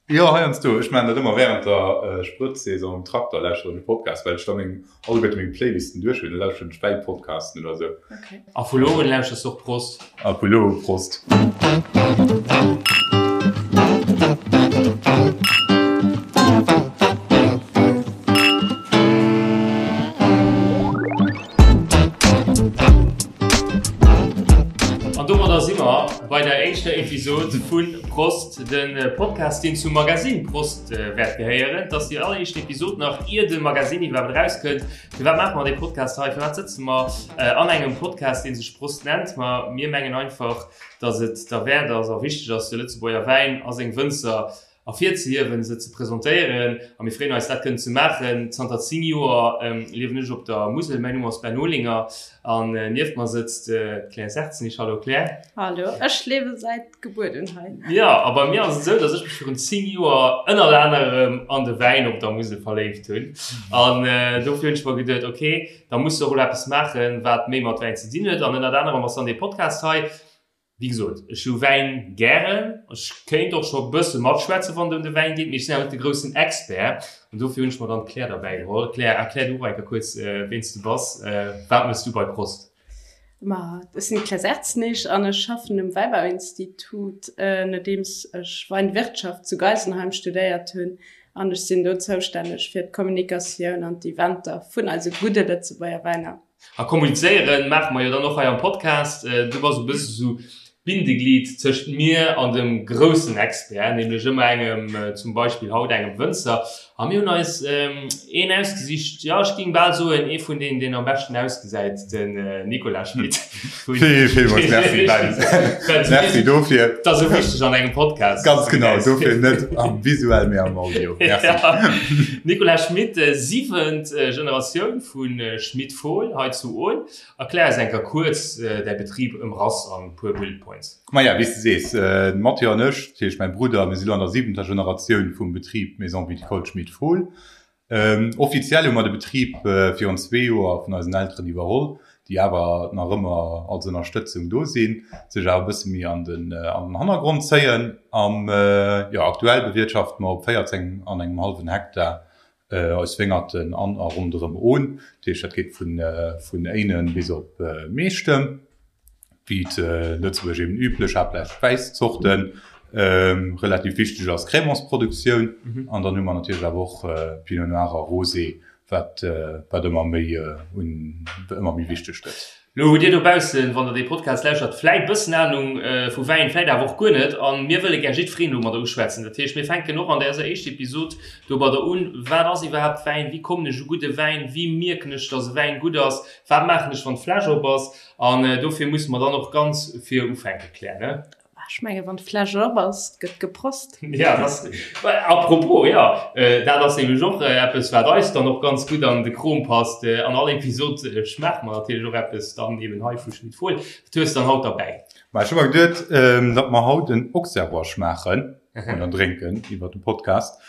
Jo, heiansdo. Ech maachen dat ëmmer wärend der Sprëtzsaison um Trakter, lauschteren ech e Podcast, well ech da meng, alleguerte meng Playlisten duerch hunn. Da lauschteren ech Wäipodcasten oder sou. A vu lo un lauschters du och Prost. A vu lo u Prost. An domadder si mer bei der éischter Episod vu Prost, de Podcast, deen zum Magasinn Prost wäert gehéieren. Et ass déi alleréischt Episod nach ier de Magasinn iwwerhaapt erauskënnt. Firwat maache mer dee Podcast hei? Firwat sëtze mer an engem Podcast, dee sech Prost nennt? Ma mir mengen einfach, datt et derwäert ass a wichteg ass, de Lëtzebuerger Wäin a seng Wënzer ervirzehiewen, se ze presentéieren a mir freeën eis dat kënnen ze maachen. Zanter 10 Joer liewen ech op der Musel, mäin Numm ass Ben Olinger an nieft mer sëtzt d'Claire Serzenich. Hallo Claire. Hallo, ech liewe säit Gebuert un hei. Jo, a bei mir ass et esou, datt ech mech virun 10 Joer ënnert anerem an de Wäin op der Musel verléift hunn an dofir hunn ech mer geduet, ok, da muss de och elo eppes maachen, wat méi mat Wäin ze dinn huet an ënnert anerem ass dann dee Podcast hei. Wéi gesot, ech hu Wäin gären. Ech kéint och scho bësse matschwätzen, wann et ëm de Wäin geet, mee ech sinn awer net de groussen Expert. An dofir hunn ech mer dann d'Claire derbäi geholl. Claire, erklär du och eng Kéier kuerz, ween s du bass. Wat méchs du bei Prost? Ma ech sinn d'Claire Serzenich an ech schaffen um Wäibauinstitut, nodeems ech Weinwirtschaft zu Geisenheim studéiert hunn. An ech sinn do zoustänneg fir d'Kommunikatioun an d'Eventer vun eise gudde Lëtzebuerger Wäiner. A kommunizéieren maache mer jo dann och hei am Podcast. Du bass e bësse sou d'Bindeglied tëscht mir an dem groussen Expert, nämlech ëmmer engem, zum Beispill haut engem Wënzer. A mir hunn eis een ausgesicht, jo ech géing bal soen, ee vun deenen, deen am beschten ausgesäit, den Nicolas Schmit. Vill, villmools Merci, Ben. Merci dofir. Dat ass esou wichteg an engem Podcast. Ganz genau, dofir net am visuell, mee am Audio. Merci. Nicolas Schmit, siwent Generatioun vu Schmit-Fohl hei zu Ohn. Erklär eis eng Kéier kuerz däi Betrib ëmrass an e puer Bullet Points. Maja, wéi s de sees, de Mathieu an ech, dat heescht mäi Brudder, mir si lo an der siwenter Generatioun vum Betrib Maison Viticole Schmit-Fohl. Offiziell hu mer de Betrib virun zwee Joer vun eisen Elteren iwwerholl, déi awer nach ëmmer als Ënnerstëtzung do sinn, sech awer e bësse méi an den Hannergrond zéien. Am, jo, aktuell bewirtschafte mer op 14 an engem hallwen Hektar eis Wéngerten an a ronderëm Ohn. Dat heescht, dat geet vun Éinen bis op Meechtem, wéi et Lëtzebuerg eben üblech, haaptsächlech Wäiszorten. Relativ wichteg ass Crémantsproduktioun. An dann hu mer natierlech awer och Pinot Noir a Rosé, wat ëmmer méi ëmmer méi wichteg gëtt. Lo hutt Dir dobaussen, wann Der dee Podcast lauschtert, vläit bëssen Anung vu Wäin, vläit awer och guer net. A mir wëlle gär jiddwereen domadder uschwätzen. Dat heescht, mir fänken och an däser éischter Episod domadder un, Wat ass iwwerhaapt Wäin? Wéi kommen ech u gudde Wäin? Wéi mierken ech, dass e Wäin gutt ass? Wat maachen ech, wann d'Fläsch op ass? An dofir musse mer dann och ganz vir ufänken, Claire, ne? Ech menge wann d'Fläsch op ass, gëtt geprost. Ja, das, apropos, ja, dat ass nämlech och eppes, wat eis dann och ganz gutt an de Krom passt. An all Episod schmaache mer natierlech och eppes dann eben hei vu Schmit Fohl. Wat hues de dann haut derbäi? Ma ech hu mer geduet, datt mer haut en Auxerrois schmaachen oder drénken iwwer de Podcast.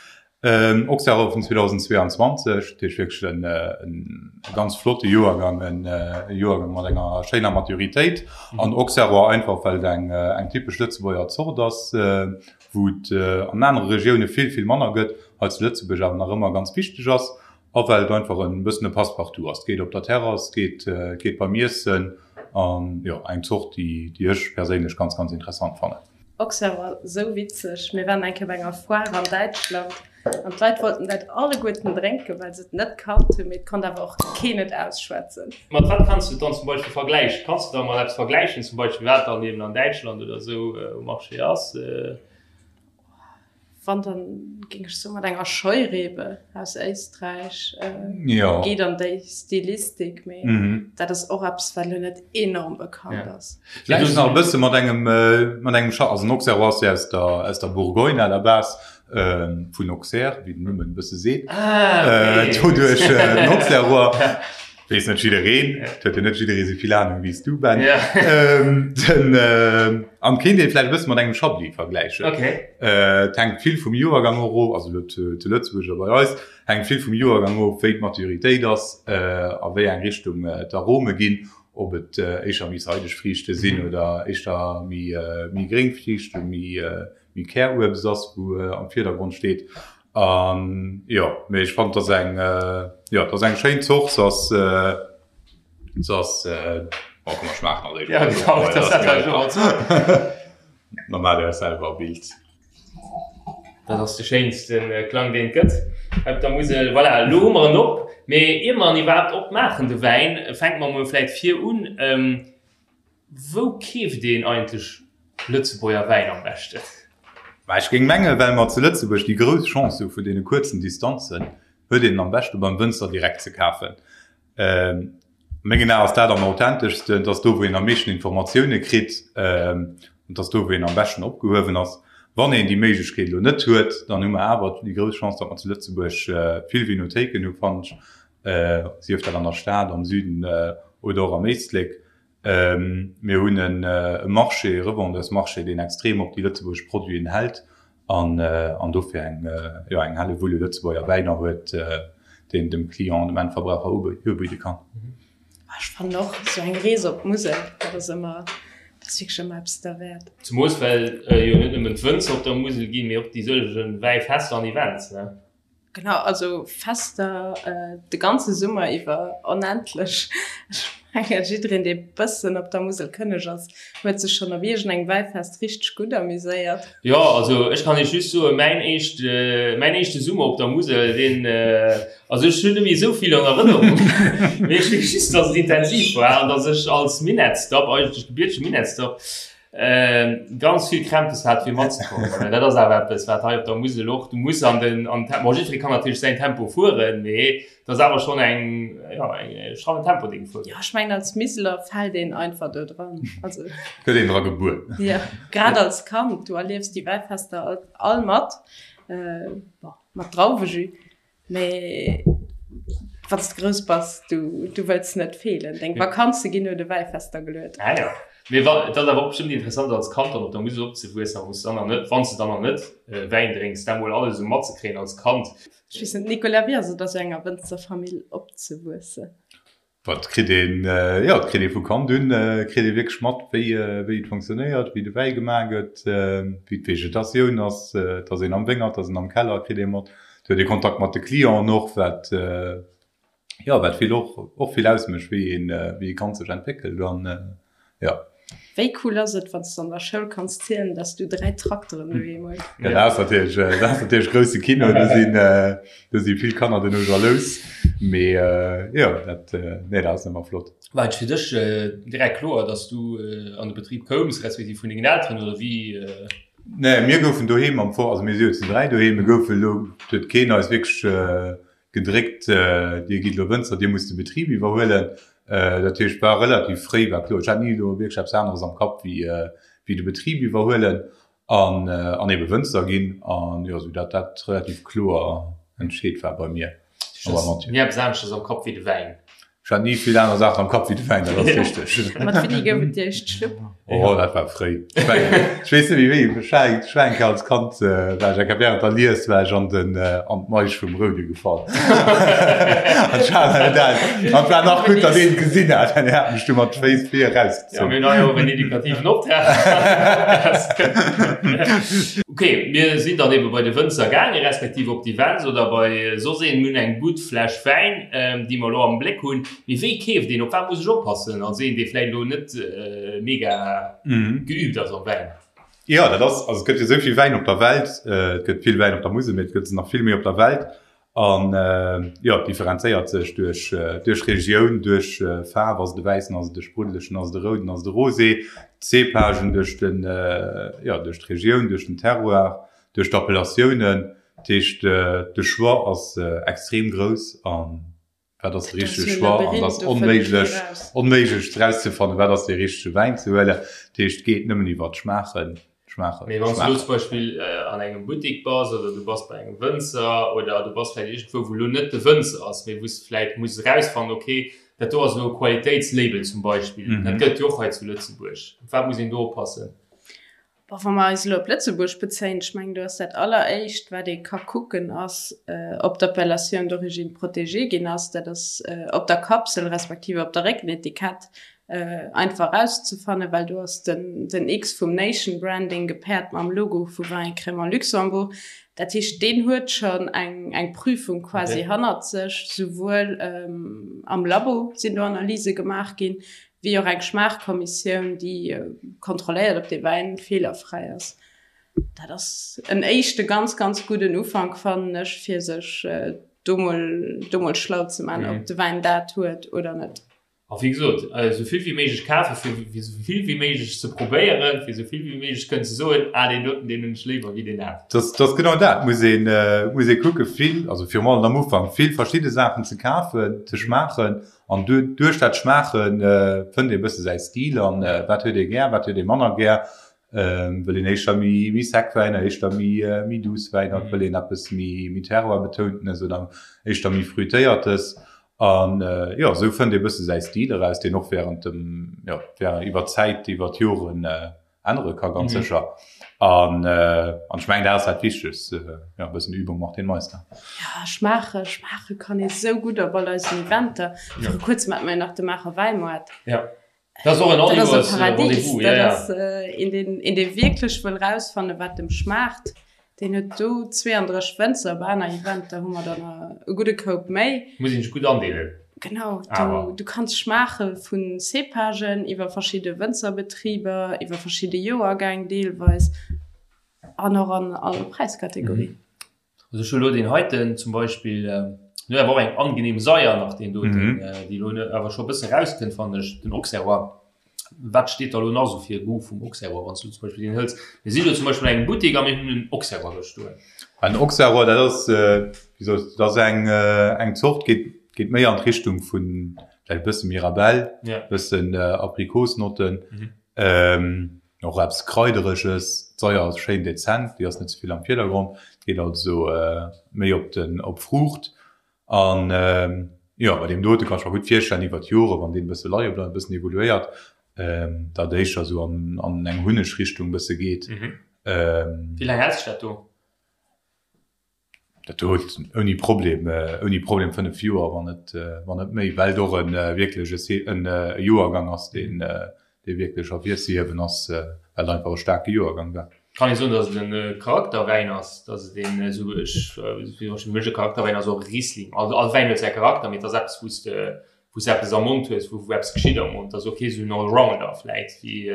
Auxerrois vun 2022, dat heescht wierklech e ganz flotte Joergang, e Joergang mat enger schéiner Maturitéit. An Auxerrois einfach, well et eng typesch Lëtzebuerger Zort ass, wou et an anere Regioune vill, vill manner gëtt, hei zu Lëtzebuerg awer nach ëmmer ganz wichteg ass. A well et einfach e bëssen e Passe-partout ass. Et geet op der Terrass, et geet beim Iessen an jo, eng Zort, déi ech perséinlech ganz, ganz interessant fannen. Auxerre war sou witzeg, mir waren eng Kéier bei enger Foire an Däitschland an d'Leit wollten dat alleguerten drénken, well se et net kannt hunn, mee et konnt awer och keen et ausschwätzen. Mat wat kanns du et dann zum Beispill vergläichen? Kanns du da mol eppes vergläichen, zum Beispill wat dann eben an Däitschland oder sou um Marché ass? Wann dann géing ech soen mat enger Scheurebe aus Éisträich geet an déi Stilistik, mee dat ass och eppes wat elo net enorm bekannt ass. Vläicht nach e bësse mat engem mat engem Scha also den Auxerrois ass jo aus der aus der Bourgogne à la base, vun Auxerre, wéi den Numm et e bësse seet, doduerch den Auxerrois. Weess net jiddereen, et huet jo net jidderee sou vill Ahnung wéi s du, Ben. Den, an kéint ee vläicht e bësse mat engem Chablis vergläichen. Et hänkt vill vum Joergang och of, also elo zu Lëtzebuerg oder bei eis, hänkt vill vum Joergang of, wéi d'Maturitéit ass, a wéi eng Richtung d'Arome ginn, ob et éischter méi seideg Friichte sinn oder éischter méi gréng Friichten, méi. méi Käruebst ass, wou am Virdergrond steet. An jo, mee ech fannen, et ass eng, jo, et ass eng schéin Zort. Se ass, se ass, oh komm mer schmaachen als éischt. Ja genau, dat hat ech och als. Da maacht Dir Iech selwer e Bild. Dat ass de schéinste Klang deen et gëtt op der Musel. Voilà, elo hu mer en op. Mee ier mer en iwwerhaapt opmaachen, de Wäin, fänke mer emol vläit vir un. Wou keeft een eigentlech Lëtzebuerger Wäin am beschten? Mä ech géing mengen, well mer zu Lëtzebuerg déi grouss Chance hu vun deene kuerzen Distanzen, huet een en am beschte beim Wënzer direkt ze kafen. A mengen Aen ass dat am authenteschsten, et ass do, wou een am meeschten Informatioune kritt, an et ass do, wou een am beschten opgehuewen ass. Wann een déi Méiglechkeet elo net huet, dann hu mer awer déi grouss Chance, datt mer zu Lëtzebuerg vill Vinothéiken hu, fannen ech, sief dat an der Stad, am Süden oder och am Éislek. Mir hunn e Marché, e Revendeursmarché, deen extrem op déi lëtzebuergesch Produiten hält an an dofir eng, jo, eng Hellewull u Lëtzebuerger Wäiner huet, deen dem Client, dem Endverbraucher ubidde kann. Ech fannen och esou eng Rees op d'Musel, dat ass ëmmer, dat ass wierklech ëmmer eppes derwäert. Zemoos well jo net nëmmen d'Wënzer op der Musel ginn, mee och déi sëllege Wäifester an Events, ne? Genau, also Fester de ganze Summer iwwer, onendlech. Ech mengen, jiddereen, dee bëssen op der Musel kënneg ass, huet sech schonn op iergendengem Wäifest richteg gutt amuséiert. Jo, also ech kann Iech just soen, mäin éischt, mäin éischte Summer op der Musel, deen, also ech hunn net méi esou vill an Erënnerung, mee ech weess just, dass et intensiv war an dass ech als Minettsdapp, eigentlech gebiertege Minettsdapp, Ganz vill Krämpes hat fir matzekommen. Dat ass awer eppes wat hei op der Musel och, du muss an den an Tempo, bon jiddweree kann natierlech säin Tempo fueren, mee et ass awer schonn eng jo eng strammen Tempo dee gefuer gëtt. Jo ech mengen als Miseler fält een einfach do dran, also. Gëtt een dra gebuer. Jo grad als Kand, du erliefs déi Wäifester all mat, bon mat Drauwejus. Mee wann s de grouss bass, du, du wëlls net feelen. Deng Vakanze ginn no de Wäifester geluet. Ah jo. Mee wa, et ass awer och bestëmmt interessant als Kand dann op der Musel opzewuessen, a wou s de dann nach net, wann s de dann nach net Wäin drénks, dat mol alles esou matzekréien als Kand. Ech weess net, Nicolas, wéi ass et a sou enger Wënzerfamill opzewuessen? Wat kritt een, jo, et kritt ee vu Kand un, kritt ee wierklech mat, wéi, wéi et fonctionnéiert, wéi de Wäi gemaach gëtt, wéi d'Vegetatioun ass, et ass een am Wéngert, et ass een am Keller, kritt ee mat. Et huet ee Kontakt mat de Clienten och, wat, jo, wat vill och, och vill ausmécht, wéi een, wéi ee Kand sech entwéckelt an, jo. Wéi cool ass et, wann s de an der Schoul kanns zielen, dass du 3 Trakteren doheem hues? Ja, dat ass natierlech, dat ass natierlech grousse Kino. Do sinn, do si vill Kanner duerno jalous. Mee jo, dat, nee, dat ass ëmmer flott. War et fir dech direkt kloer, dass du an de Betrib koums, respektiv vun dengen Elteren, oder wéi? Nee, mir goufen doheem am Fong, also mir si jo zu 3 doheem, mir goufe lo, et huet keen eis wierklech gedréckt, Dir gitt elo Wënzer, Dir musst de Betrib iwwerhuelen. Dat heescht, war relativ fréi war kloer, ech hat ni elo wierklech eppes aneres am Kapp wéi wéi de Betrib iwwerhuelen an an ebe Wënzer ginn. An jo, sou dat dat relativ kloer entscheet war bei mir a beim Mathieu. Ni eppes aneschters am Kapp wéi de Wäin? Ech hat ni vill aner Saachen am Kapp wéi de Wäin, dat ass richteg. Mat wéini gouf et déi éischt Schlupp? Oh, dat war fréi. Ech mengen, ech weess net méi wéi, ech war eng, ech war eng Kéier als Kand, war ech eng Kéier während der Lies war ech an den, an d'Maisch vum Roude gefall. An ech hat dat, an et war nach gutt, datt een et gesinn hat, well hien hat mech du mat Féiss vir Ja, erausgezunn. mir hunn hei och en edukativen Optrag. Ok, mir sinn dann ebe bei de Wënzer gaangen, respektiv op d'Events oder bei soss een. Mir hunn eng gutt Fläsch Wäin, déi mer elo am Bléck hunn. Mee wéi keeft een? Op wat muss ech oppassen als een, dee vläicht elo net mega geüübt ass am Wäin? Jo, dat ass, also et gëtt jo esou vill Wäin op der Welt. Et gëtt vill Wäin op der Musel, mee et gëtt se nach vill méi op der Welt. An jo, et differenzéiert sech duerch duerch Regioun, duerch Faarf, ass et e wäissen, ass et e spruddelegen, ass et e rouden, ass et e rosé, d'Cépagen, duerch den, jo, duerch d'Regioun, duerch den Terroir, duerch d'Appellatiounen. Dat heescht, de Choix ass extrem grouss a wat ass de richtege Choix? An et ass onméiglech, onméiglech erauszefannen, wat ass dee richtege Wäin ze huelen. Dat heescht, et geet nëmmen iwwer d'Schmaachen. Schmaachen. Mee wann s du elo zum Beispill an engem Buttik bass oder du bass bei engem Wënzer oder du bass vläicht iergendwou, wou elo net de Wënzer ass, mee wou s de vläicht muss erausfannen, okay, dat do ass elo e Qualitéitslabel zum Beispill, dat gëtt et jo och hei zu Lëtzebuerg. Op wat muss een do oppassen? Bon, wa mer eis elo op Lëtzebuerg bezéien, ech mengen, do ass dat Alleréischt, wat ee ka kucken, ass, ob d'Appellation d'origine protégée ginn ass. Dat ass op der Kapsel respektiv op der Réckenetikett. einfach erauszefannen, well do ass den den X vum Nation Branding gepaart mam Logo vu Vin et Crémant Luxembourg. Dat heescht, deen huet schonn eng eng Prüfung quasi hannert sech, souwuel am Labo sinn do Analyse gemaach ginn, wéi och eng Schmaachkommissioun, déi kontrolléiert, ob dee Wäin feelerfräi ass. Dat ass en éischte ganz, ganz gudden Ufank, fannen ech, fir sech do mol do mol schlau ze man, ob de Wäin dat huet oder net. A wéi gesot, esou vill wéi méiglech kafen, fir esou vill wéi méiglech ze probéieren, fir esou vill wéi méiglech kënnen ze soen, ah deen doten, deen hunn ech léiwer wéi deen aneren. Dat ass genau dat, muss een, muss ee kucken, vill, also virum allem am Ufank, vill verschidde Saachen ze kafen, ze schmaachen an duerch dat Schmaache fënnt ee e bësse säi Stil an wat huet ee gär, wat huet ee manner gär. Wëll een éischter méi méi sec Wäiner, éischter méi méi douce Wäiner, wëll een eppes méi méi Terroir-betountenes oder éischter méi Fruitéiertes. An jo, esou fënnt ee bësse säi Stil eraus, deen och während dem, jo, während iwwer d'Zäit, iwwer d'Joren ännere ka ganz sécher. An an ech mengen, dat ass dat Wichtegst, jo, e bëssen Übung macht den Meister. Jo, schmaache, schmaache kann ee sou gutt op all eisen Eventer. Viru kuerzem hate mer jo nach de Maacher Wäimaart. Jo. Dat ass och en Dat ass e Paradies. Dat ass een, deen, een, dee wierklech wëll rausfannen, wat em schmaacht. Deen huet do 32 Wënzer. Op aner Eventer hu mer der nach e gudde Koup méi. Muss een sech gutt andeelen. Genau, du, du kanns schmaache vu Cépagen iwwer verschidde Wënzerbetriber, iwwer verschidde Joergäng deelweis an och an all Präiskategorie. Also ech hu lo deen heiten zum Beispill, deen huet awer och eng angenehm Saier nach deen doten, déi lo awer scho e bësse rauskënnt fannen ech, den Auxerrois. Wat steet da lo nach esou fir Goût vum Auxerrois, wann s du zum Beispill deen hëls? Mir sinn lo zum Beispill an engem Buttek a mir hunn en Auxerrois do stoen. En Auxerrois, dat ass, wéi soll ech, dat ass eng, eng Zort, geet, geet méi an d'Richtung vun vläicht e bësse Mirabelle, bëssen Aprikosnotten. Och eppes Kraidereges, d'Saier ass schéin dezent, déi ass net ze vill am Virdergrond, geet also méi op den op Fruucht. An jo, bei deem dote kann ech mer gutt virstellen iwwer d'Jore wann deen e bësse leie bleift, e bëssen evoluéiert, datt éischter esou an an eng Hunneg-Richtung bësse geet. Wéi laang hält sech dat do? Dat huet ouni Problem, ouni Problem 5 Joer, wann net, wann net méi, well et och e wierklech e e Joergang ass, deen, dee wierklech ervirzehiewen ass, well et einfach e staarke Joergang war. Kann ee soen, datt et e Charakterwäin ass, datt et een esou, ech, fir mech e Charakterwäin ass och e Riesling. Also all Wäin huet säi Charakter, mee et ass eppes, wou s de, wou s de eppes am Mond hues, wou, wou eppes geschitt am Mond. Et ass och kee esou en Allrounder vläit wéi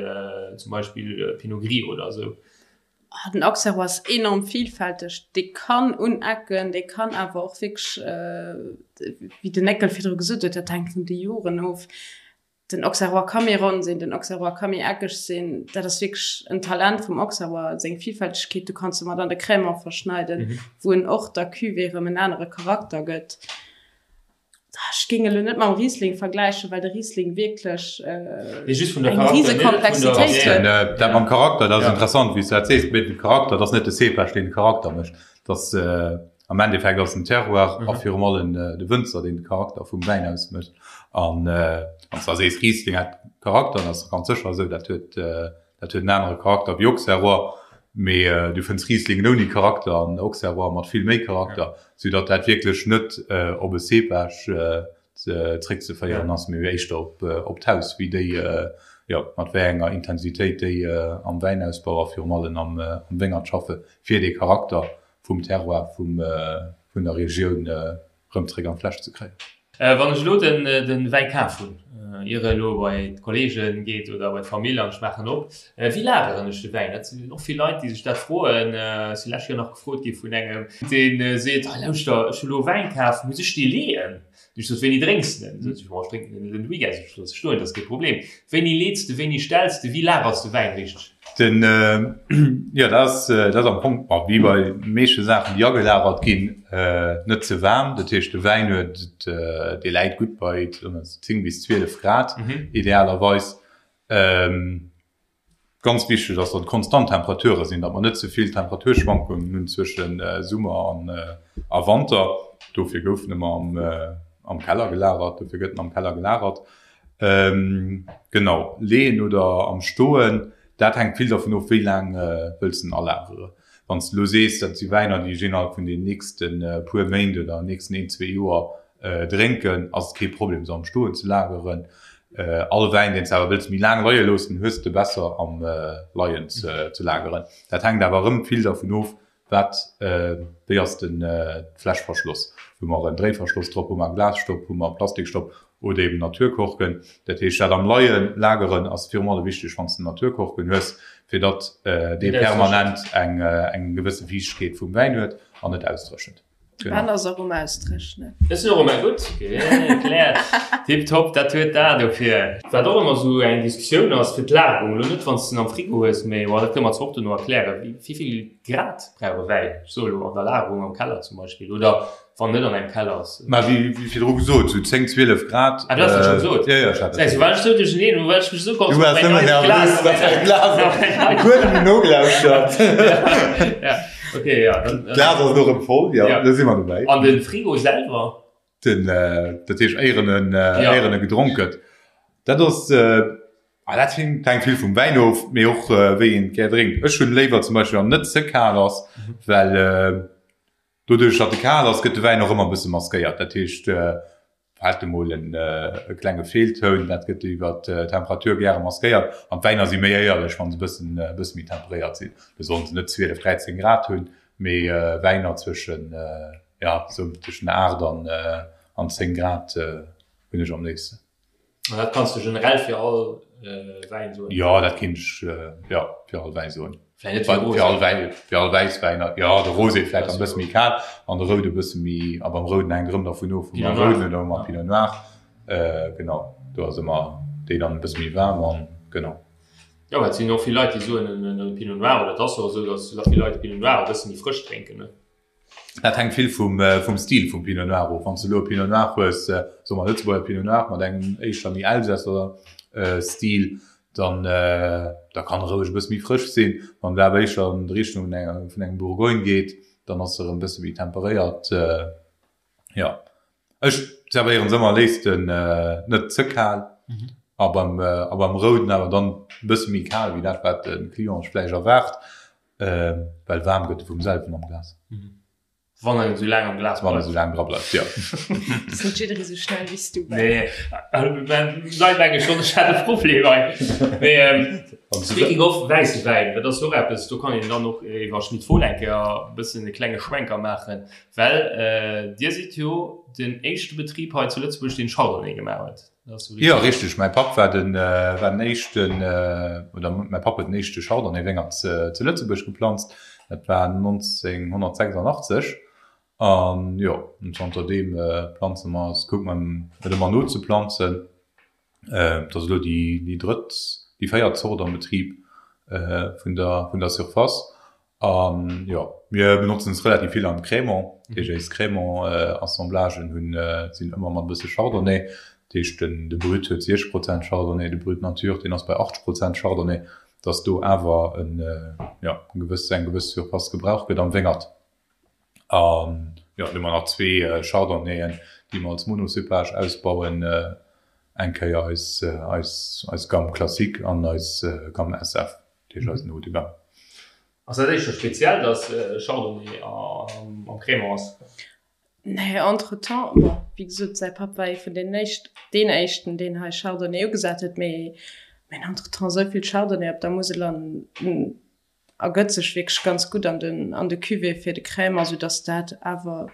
zum Beispill Pinot Gris oder esou. Den Auxerrois ass enorm vielfälteg. Dee kann unecken, dee kann awer och wierklech, wéi den Néckel virdru gesot huet, dat hänkt vun de Joren of. Den Auxerrois ka méi ronn sinn, den Auxerrois ka méi eckeg sinn. Dat ass wierklech en Talent vum Auxerrois, seng Vielfältegkeet. Du kanns e mat an de Crémant verschneiden, wou en och der Cuvée erëm en anere Charakter gëtt. Ech géing elo net mam Riesling vergläichen, well de Riesling wierklech eng riese Komplexitéit huet. Dat mam Charakter, dat ass interessant, wéi s du dat sees. Mee de Charakter, dat ass net de Cépage, deen de Charakter mécht. Dat ass am Endeffekt ass den Terroir a virum allem de Wënzer, deen de Charakter vum Wäin ausmécht. An wann s du da sees, Riesling hätt Charakter, dat ass ganz sécher esou, dat huet Dat huet en anere Charakter wéi Auxerrois, mee du fënns Rieslingen ouni Charakter an Auxerrois mat vill méi Charakter, sou datt dat wierklech net op e Cépage zréckzeféieren ass, mee éischter op d'Haus, wéi déi, jo, mat wéi enger Intensitéit déi am Wäinausbau a virum allem am Wéngert schaffe fir dee Charakter vum Terroir vun der Regioun rëm zréck an d'Fläsch ze kréien. Wann ech elo den Wäi kaf hunn, ier e elo bei d'Kollegen geet oder bei d'Famill an ech maachen op, wéi lageren ech de Wäin? Dat sinn och vill Leit déi sech dat froen. Ech si lescht Joer nach gefrot gi vun engem deen seet, hei lauschter ech hu lo Wäin kaf, muss ech dee leeën? Ech sot, wéini drénks de den? Sot se, ech drénken den den Weekend. Ech looss e stoen, dat ass kee Problem. Wéini leets de, wéini stells de, wéi lagers de Wäin richteg? Den, jo, dat ass, dat ass am Fong, bon, wéi bei meeschte Saachen, déi agelagert ginn, net ze waarm. Dat heescht, de Wäin huet, dee läit gutt bei 10 bis 12 Grad idealerweis. Ganz wichteg ass, datt et konstant Temperature sinn, datt mer net ze vill Temperaturschwankungen hunn zwësche Summer a Wanter. Dofir gouf en ëmmer am Keller gelagert, dofir gëtt en am Keller gelagert. Genau, leeën oder am Stoen, dat hänkt vill dervun of, wéi laang wëlls de en alagere. Wann s de elo sees, dat si Wäiner, déi ech innerhalb vun den nächste puer Méint oder nächsten een, zwee Joer drénken, ass et kee Problem, se am Stoen ze lageren. All Wäin, deen s de awer wëlls méi laang leie loossen, hues de besser am Leien ze lageren. Dat hänkt awer erëm vill dervun of, wat, wéi ass den d'Fläsch verschloss. Hu mer en Dréiverschloss drop, hu mer e Glasstopp, hu mer e Plastikstopp oder eben Naturkorken. Dat heescht, dat am Leie lageren ass virum allem wichteg, wann s de Naturkorken hues, fir datt dee permanent eng gewësse Fiichtegkeet vum Wäin huet an net ausdréchent. De Ben ass och um Ausdréchnen. Ech sinn och ëmmer gutt gekläert. Tiptop, dat huet d'A dofir. Wat och ëmmer esou eng Diskussioun ass fir d'Lagerung, elo net wann s de en am Frigo hues, mee bon dat kënne mer zwar och dono erklären, wéi vill Grad brauch e Wäin, ech soe elo an der Lagerung am Keller zum Beispill oder wann en net an engem Keller ass. Mä wéi virdru gesot, sou 10, 12 Grad. Ah du has dat scho gesot? Jo, jo, ech hat dat gesot. War ech esou duercherneen, well ech mech esou Du waars nëmmen nervös, datt däi Glas op huet net nogelauschtert. Ja. Okay, ja, dann, äh, Glas ass elo rëm voll, ja, ja. da si mer dobäi. An de Frigo selwer? Den, äh, dat heescht éieren en, äh, ja. éieren e gedronk gëtt. Dat ass, äh, ah, dat hänkt hänkt vill vum Wäin of, mee och äh, wéi een et gär drénkt. Ech hunn léiwer zum Beispill, wann net ze kal ass, mhm. well äh, doduerch, datt e kal ass, gëtt de Wäin och ëmmer e bësse maskéiert. Dat heescht, äh, Fält emol en klenge Feeltoun, dat gëtt iwwer d'Temperatur gäre maskéiert. An d'Wäiner si méi éierlech, wa se e bëssen e bësse méi temperéiert sinn. Do sollen se net 12, 13 Grad hunn, mee Wäiner zwëschen, jo, sou tëschent 8 an an 10 Grad hunn ech am léifsten. An dat kanns de generell fir all Wäin soen? Jo, dat kéint ech, jo, fir all Wäi soen. Vläicht net fir Rosé. Fir all Wäin, fir all Wäisswäiner, jo, de Rosé vläicht e bësse méi kal an de Roude e bësse méi, a beim Rouden hänkt erëm dervun of, hu mer Rouden oder hu mer Pinot Noir, genau, do ass ëmmer déi dann e bësse méi waarm an genau. Jo, well et sinn och vill Leit, déi soen, en Pinot Noir, oder et ass och esou, datt vill Leit de Pinot Noir e bësse méi frësch drénken, ne? Dat hänkt vill vum Stil vum Pinot Noir of. Wann s de elo e Pinot Noir hues, soe mer Lëtzebuerger Pinot Noir mat engem éischter méi Elsässer Stil, dann da kann e roueg e bësse méi frësch sinn. Wann et awer éischter an d'Richtung vun engem Bourgogne geet, dann ass e erëm e bësse méi temperéiert. Jo, ech zerwéieren se ëmmer léifsten net ze kal a beim a beim Rouden awer dann e bësse méi kal wéi dat wat de Client sech vläicht erwaart. Well waarm gëtt e vum selwen am Glas. Wann en esou laang am Glas bleift. Wann en esou laang dra bleift, jo. Ass net jidderee sou schnell wéi s du, Ben. Nee, nei meng ech schonn, ech hat e Problem hei. Mee speaking of wäisse Wäin, dat ass jo och eppes, do kann een dann och iwwer Schmit Fohl eng Kéier e bëssen e klenge Schwenker maachen, well Dir sidd jo den éischte Betrib hei zu Lëtzebuerg, deen Chardonnay gemaach huet. Jo, richteg. Mäi Papp war den, war den éischten, oder mäi Papp huet den éischte Chardonnay-Wéngert zu Lëtzebuerg geplanzt. Dat war 1986. An jo, zanter deem planze mer, kucke mer et ëmmer nozeplanzen. Et ass elo déi, déi drëtt, déi véiert Zort am Betrib vun der, vun der Surface. An jo, mir benotzen es relativ vill am Crémant. Dat heescht eis Crémant-Assemblagen hunn, sinn ëmmer mat e bësse Chardonnay. Dat heescht den, de Brut huet 60 Prozent Chardonnay, de Brut Nature, deen ass bei 80 Prozent Chardonnay, dass do awer en, jo, en gewëss, eng gewëss Surface gebraucht gëtt am Wéngert. An jo, dann hu mer nach zwee Chardonnayen, déi mer als Monocépage ausbauen, eng Kéier eis, eis, eis Gamme Classique an eis Gamme SF, dat heescht eisen Haut de Gamme. Ass dat éischter speziell, dass Chardonnay am Crémant ass? Nee, entretemps, bon, wéi gesot, säi Papp war ee vun deenen éischt, deen éischten, deen hei Chardonnay ugesat huet, mee mir hunn entretemps esou vill Chardonnay op der Musel an ergëtt sech wierklech ganz gutt an den, an de Cuvée fir de Crémant, soudass dat awer,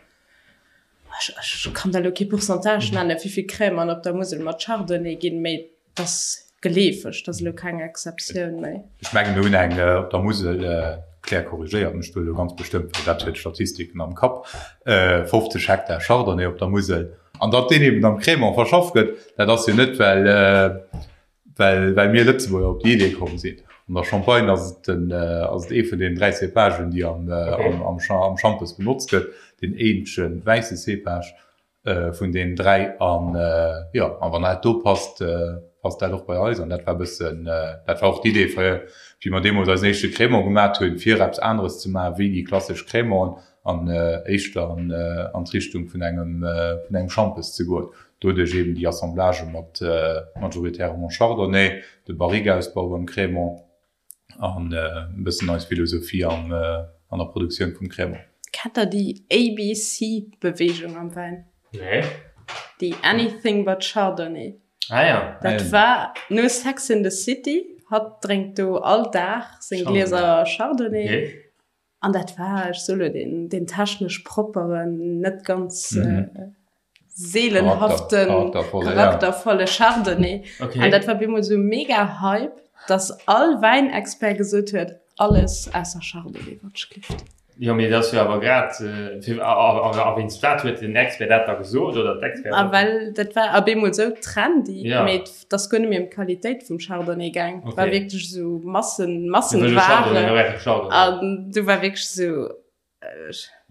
ech, ech kann der elo kee Pourcentage nennen, wéi vill Crémant op der Musel mat Chardonnay ginn, mee 't ass geleefeg, 't ass elo keng Exceptioun méi. Ech mengen mir hunn eng op der Musel, d'Claire korrigéiert mech do elo ganz bestëmmt, well dat huet d'Statistiken am Kapp, 50 Hektar Chardonnay op der Musel. An datt deen eben am Crémant verschafft gëtt, dat ass jo net well well well mir Lëtzebuerger op déi Idee komm sinn. An der Champagne ass et den ass et ee vun deenen 3 Cépagen déi am am am Schampes benotzt gëtt, deen eenzege wäisse Cépage. Vun deenen 3 an jo, a wann dat do passt, passt dat och bei eis an dat war e bëssen, dat war och d'Idee fir wéi mer deemools eisen éischte Crémant gemat hunn, fir eppes aneres ze maachen wéi déi klassesch Crémanten an éischter an an d'Richtung vun engem vun engem Schampes ze goen. Doduerch eben déi Assemblagë mat majoritairement Chardonnay, de Barrique-Ausbau beim Crémant. an e bëssen eis Philosophie an an der Produktioun vum Crémant. Kennt der déi ABC-Beweegung am Wäin? Nee. Déi Anything but Chardonnay. Ah ja. Dat war no Sex in the City. Hatt drénkt do all Dag seng Glieser Chardonnay. Okay. An dat war, ech soe lo, deen, deen technesch propperen, net ganz mhm. seelenhaften, charaktervolle, charaktervolle Chardonnay. Okay. An dat war bemol so mega Hype, dass all Wäinexpert gesot huet, alles ausser Chardonnay wat schlift. Jo, mee dat ass jo awer grad, fir, a, a, a wéinst wat huet den Expert dat da gesot oder d'Expertin? A well dat war op eemol esou trendy, Ja. mee et ass guer net méi ëm d'Qualitéit vum Chardonnay gaang. Et war Okay. wierklech esou Massen, Mir wëlle Chardonnay, Massenware. mir brauche Chardonnay. An du war wierklech esou,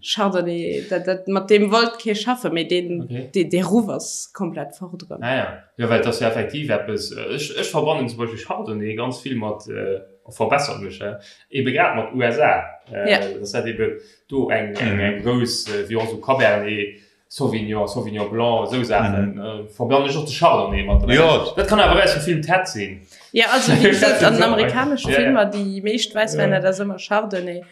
Chardonnay, dat, dat, mat deem wollt kee schaffen, mee deen, Okay. dee, dee Ruff ass komplett fort erëm. Ah ja. Jo, well et ass jo effektiv eppes, ech, ech verbannen zum Beispill Chardonnay ganz vill mat, verbessert mech, ebe grad mat USA, Ja. dass dat ebe do eng, eng, eng grouss, wéi och esou Cabernet Sauvignon, Sauvignon Blanc, esou Saachen, verbannen ech och de Chardonnay mat. Jo. Dat kann awer aus dem Film Ted sinn. Ja, also wéi gesot, an den amerikanesche Ja, ja. Filmer, déi meescht Wäisswäiner, dat ass ëmmer Chardonnay.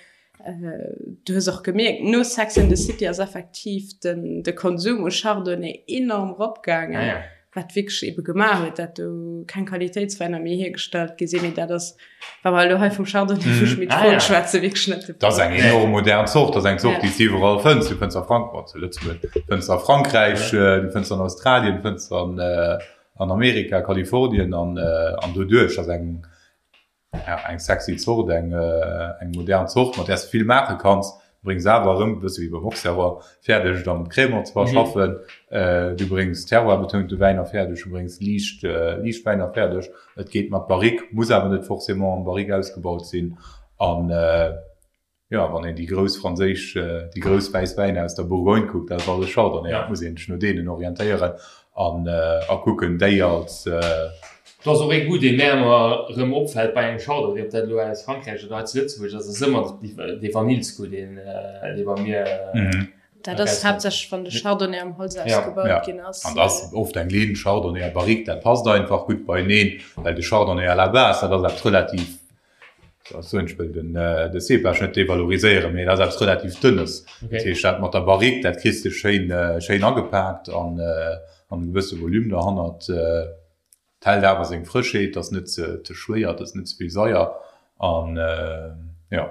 Du hues och gemierkt, no Sex and the City ass effektiv den, de Konsum u Chardonnay enorm eropgaangen, Ah ja. wat wierklech ebe gemaach huet, dat do keng Qualitéitswäiner méi hiergestallt gi sinn. Mee dat ass, wa mer elo hei vum Chardonnay vu Schmit Ah Fohl ja. schwätzen, wierklech net de Dat ass Fall. eng enorm modern Zort. Dat ass eng Zort, Ja. déi s de iwwerall fënns. Du fënns a Frank-, bon, zu Lëtzebuerg, fënns a Frankräich, du fënns an Australien, du fënns an, an Amerika, Kalifornien an, an doduerch ass eng, Ja, eng sexy Zort, eng eng modern Zort, mat där s de vill maache kanns. Du bréngs awer erëm, e bësse wéi beim Auxerrois, fäerdeg et am Crémant ze verschaffen. Du bréngs terroir-betounte Wäiner fäerdeg, du bréngs liicht liicht Wäiner fäerdeg. Et geet mat Barrique, muss awer net forcément am Barrique ausgebaut sinn. An Jo, wann een déi grouss franséisch, déi grouss wäiss Wäiner aus der Bourgogne kuckt, dat ass alles Chardonnay. Dat muss een sech no deenen orientéieren an a kucken, déi als. Do ass och ee Goût, dee mär ëmmer erëm opfält bei engem Chardonnay, ob dat elo aus Frankräich oder hei zu Lëtzebuerg ass, ass ëmmer dee Vanillsgoût, deen, dee bei mir. Dat ass haaptsächlech, wann de Chardonnay am Holz ausgebaut ginn ass. An dat ass oft eng Linn Chardonnay a Barrique, dat passt einfach gutt beieneen, well de Chardonnay à la base, dat ass eppes relativ Ech wëll den de Cépage net devaloriséieren, mee dat ass eppes relativ Dënnes. Dat heescht, dat mat der Barrique, dat kriss de schéin, schéin agepaakt an an e gewësse Volume derhannert. Et hält awer seng Frëschheet, et ass net ze ze schwéier, et ass net ze vill Saier an jo.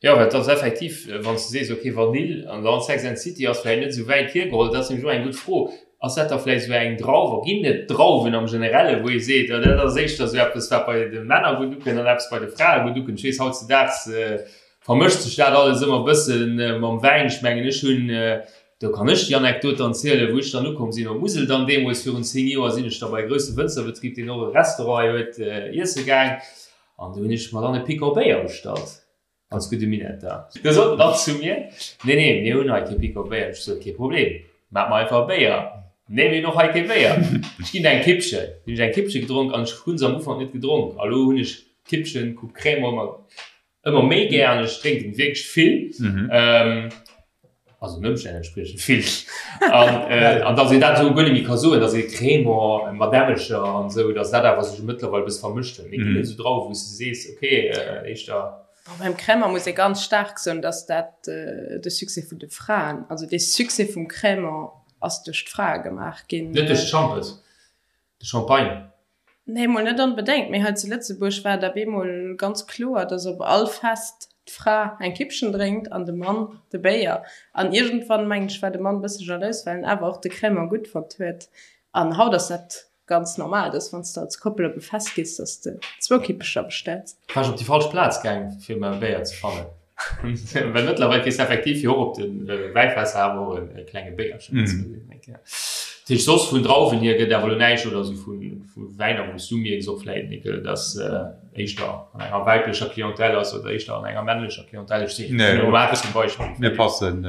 Jo, well et ass effektiv, wann s de sees, ok, Vanill an dann Sex and City ass vläicht net esou wäit hiergeholl. Dat ass nämlech och eng gutt Fro. Ass dat da vläicht esou eng Drauf a ginn et Drauwen am Generelle wou ee seet, oh dat ass éischter esou eppes wat bei de Männer gutt ukënnt an eppes bei de Frae gutt ukënnt? Ech weess, hautzedaags vermëscht sech dat alles ëmmer e bësse mam Wäin. Ech mengen, ech hunn, do kann ech déi Anekdot dann zielen, wou ech dann ukomm sinn op d'Musel dann deemools virun 10 Joer, sinn ech da bei e grousse Wënzerbetrib, deen och e Restaurant hei huet, iesse gaang. An du hunn ech mer dann e Picon Béier bestallt, als gudde Minetter. Du sot en dann zu mir, Nee, nee, mir hunn hei kee Picon Béier. Ech sot, Kee Problem, maach mer einfach e Béier. Nee, mir hunn och hei kee Béier. Ech ginn der eng Kippchen. Du hunn ech eng Kippche gedronk an ech hunn se am Ufank net gedronk. A lo hunn ech Kippchen, Coupe Crémant ëmmer, ëmmer méi gär an ech drénken wierklech vill. Also den Ëmstänn entspriechend vill. An, äh, an dass een dat esou guer net méi ka soen, dass ee Crémant mat Ämmelcher an esou, dass dat awer sech mëttlerweil e bësse vermëscht huet. Mee ginn et esou Drauwen, wou s de sees, okay, äh, éischter. Bon, beim Crémant muss ee ganz staark soen, dass dat de Succès vun de Fraen, also dee Succès vum Crémant ass duerch d'Frae gemaach ginn. Net duerch d'Schampes? De Champagne? Nee, mol net onbedéngt, mee hei zu Lëtzebuerg war et op eemol ganz kloer, dass op all Fest d'Fra eng Kippchen drénkt an de Mann de Béier. An iergendwann, mengen ech, war de Mann e bësse jalous, well en awer och de Crémant gutt fonnt huet. An haut ass dat ganz normal, dass wann s de als Koppel op e Fest gees, dass de zwou Kippecher bestells. War ech op déi falsch Plaz gaang, fir mer e Béier ze fannen? Well mëttlerweil kriss de effektiv jo och op de Wäifässer awer och e klenge Béierchen. Dat heescht, soss vun Drauwen hier gëtt awer elo näischt oder esou vu Wäiner, wou s du mierks och vläit, Nickel, dass éischter an enger weiblecher Clientèle ass oder éischter an enger männlecher Clientèle. Ech sinn zum Beispill. Mir passen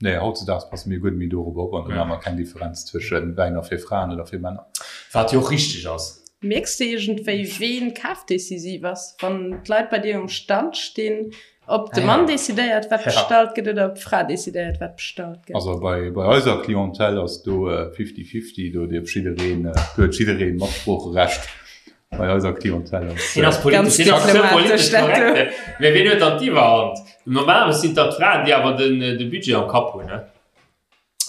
Nee, hautzedaags passe mir guer net méi dorop op an do maache mer keng Differenz zwësche Wäiner fir Fraen oder fir Männer. Wat jo och richteg ass. Mierks de iergendwéi, ween kafdecisiv ass, wann d'Leit bei dir um Stand stinn? Ob de Mann decidéiert, wat bestallt gëtt, oder ob d'Fra decidéiert, wat bestallt gëtt? Also bei eiser Clientèle ass do fifty-fifty, do dierf jiddereen, do huet jiddereen Matsproocherecht bei eiser Clientèle ass. Hien ass politesch, hien ass ze politesch korrekt. Mee wien huet dann d'Iwwerhand? Normalerweis sinn et da d'Fraen, déi awer den de Budget am Kapp hunn, ne?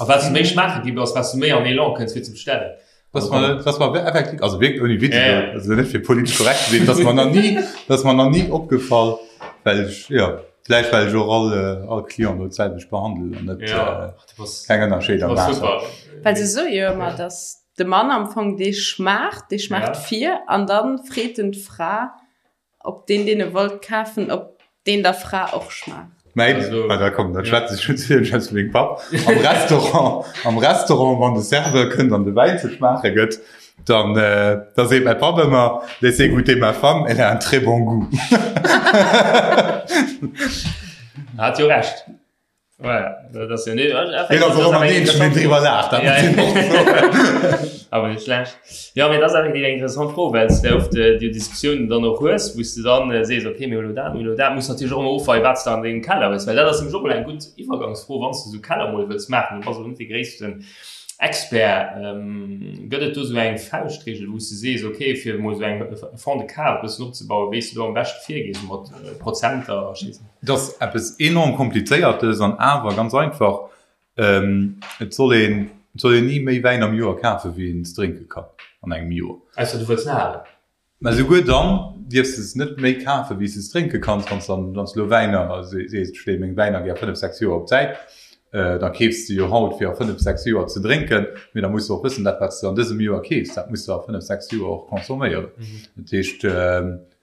A wat s de méi schmaache gi bass, wat s de méi an Elan kënns fir ze bestellen. Dass mer, dass mer effektiv, also wierklech ouni Witz, also net fir politesch korrekt ze sinn, dass mer nach ni, dass mer nach ni opgefall, well ech, jo, vläicht well ech och all, all Client do d'selwecht behandelen an net keng Ënnerscheeder maachen. Well se soe jo ëmmer, dass de Mann am Fong dee schmaacht, dee schmaacht vir an da freet en d'Fra, Ob deen deen e wollt kafen, ob deen der Fra och schmaacht. Mäin, ah da komm, da schwätze ech net vill, schwätze mengem Papp. Am Restaurant, am Restaurant, wann de Serveur kënnt an de Wäin ze schmaache gëtt, dann, da seet mäi Papp ëmmer, Laissez goûter ma femme, elle a un très bon goût. Hat jo Recht. Jo mee dat ass effektiv eng interessant Fro, well s de oft déi Diskussiounen dann och hues, wou s de dann sees, okay mir hu lo dat, mir hu lo dat, muss natierlech och ëmmer ofweien, wat s de an dengem Keller hues, well dat ass nämlech och mol eng gutt Iwwergangsfro, wann s de esou Keller mol wëlls maachen, du bass elo net dee gréissten Expert, gëtt et do esou eng Fauschtregel, wou s de sees, okay fir emol esou eng Fond de cave e bëssen opzebauen, wéi s de do am beschte virgees mat Prozenter a Scheessen? Et ass eppes enorm Komplizéiertes an awer ganz einfach. Et soll een, et soll een ni méi Wäin am Joer kafen, wéi een drénke kann an engem Joer. Ausser du wëlls en halen. Mä souguer dann dierfs de se net méi kafen, wéi s de drénke kanns. Wann s dann, wann s de elo Wäiner sees, ech leeë meng Wäiner gär 5, 6 Joer op d'Säit, da keefs de jo haut fir a 5, 6 Joer ze drénken. Mee da muss de och wëssen, dat wat s de an dësem Joer keefs, dat muss de a 5, 6 Joer och consomméieren. Dat heescht,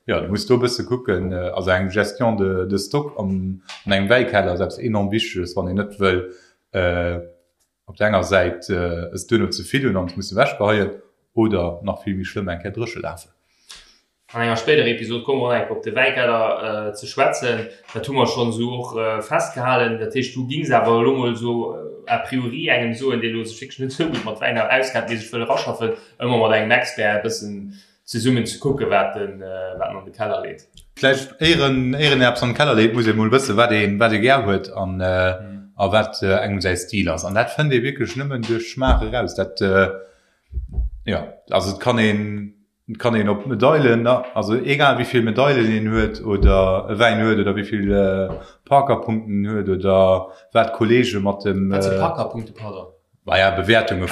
Jo, du muss do e bësse kucken. Also eng Gestion de de stock an an engem Wäikeller ass eppes enorm Wichteges, wann een net wëll op der enger Säit es duerno ze vill hunn an es musse ewechgeheien oder nach vill méi schlëmm eng Kéier dréche lafen. An enger spéiderer Episod komme mer och nach eng Kéier op de Wäikeller ze schwätzen. Dat hu mer schonn esou och festgehalen. Dat heescht, du gings awer elo mol esou a priori engem soen, dee elo sech wierklech net esou gutt mat Wäiner auskennt, mee sech wëll eraschaffen, ëmmer mat engem Expert e bëssen zesummen ze kucken, wat en an de Keller leet. Vläicht éier een eppes an de Keller leet, muss ee mol wëssen, wat ee wat ee gär huet an a wat engem säi Stil ass. An dat fënnt ee wierklech nëmmen duerch Schmaach eraus. Dat, jo, also et kann een, et kann een op Medailen, also egal wéi vill Medailen een huet oder e Wäin huet oder wéi vill Parker-Punkten en huet oder wat d'Kollege mat dem. Wat si Parker-Punkte, pardon? Maja, Bewäertunge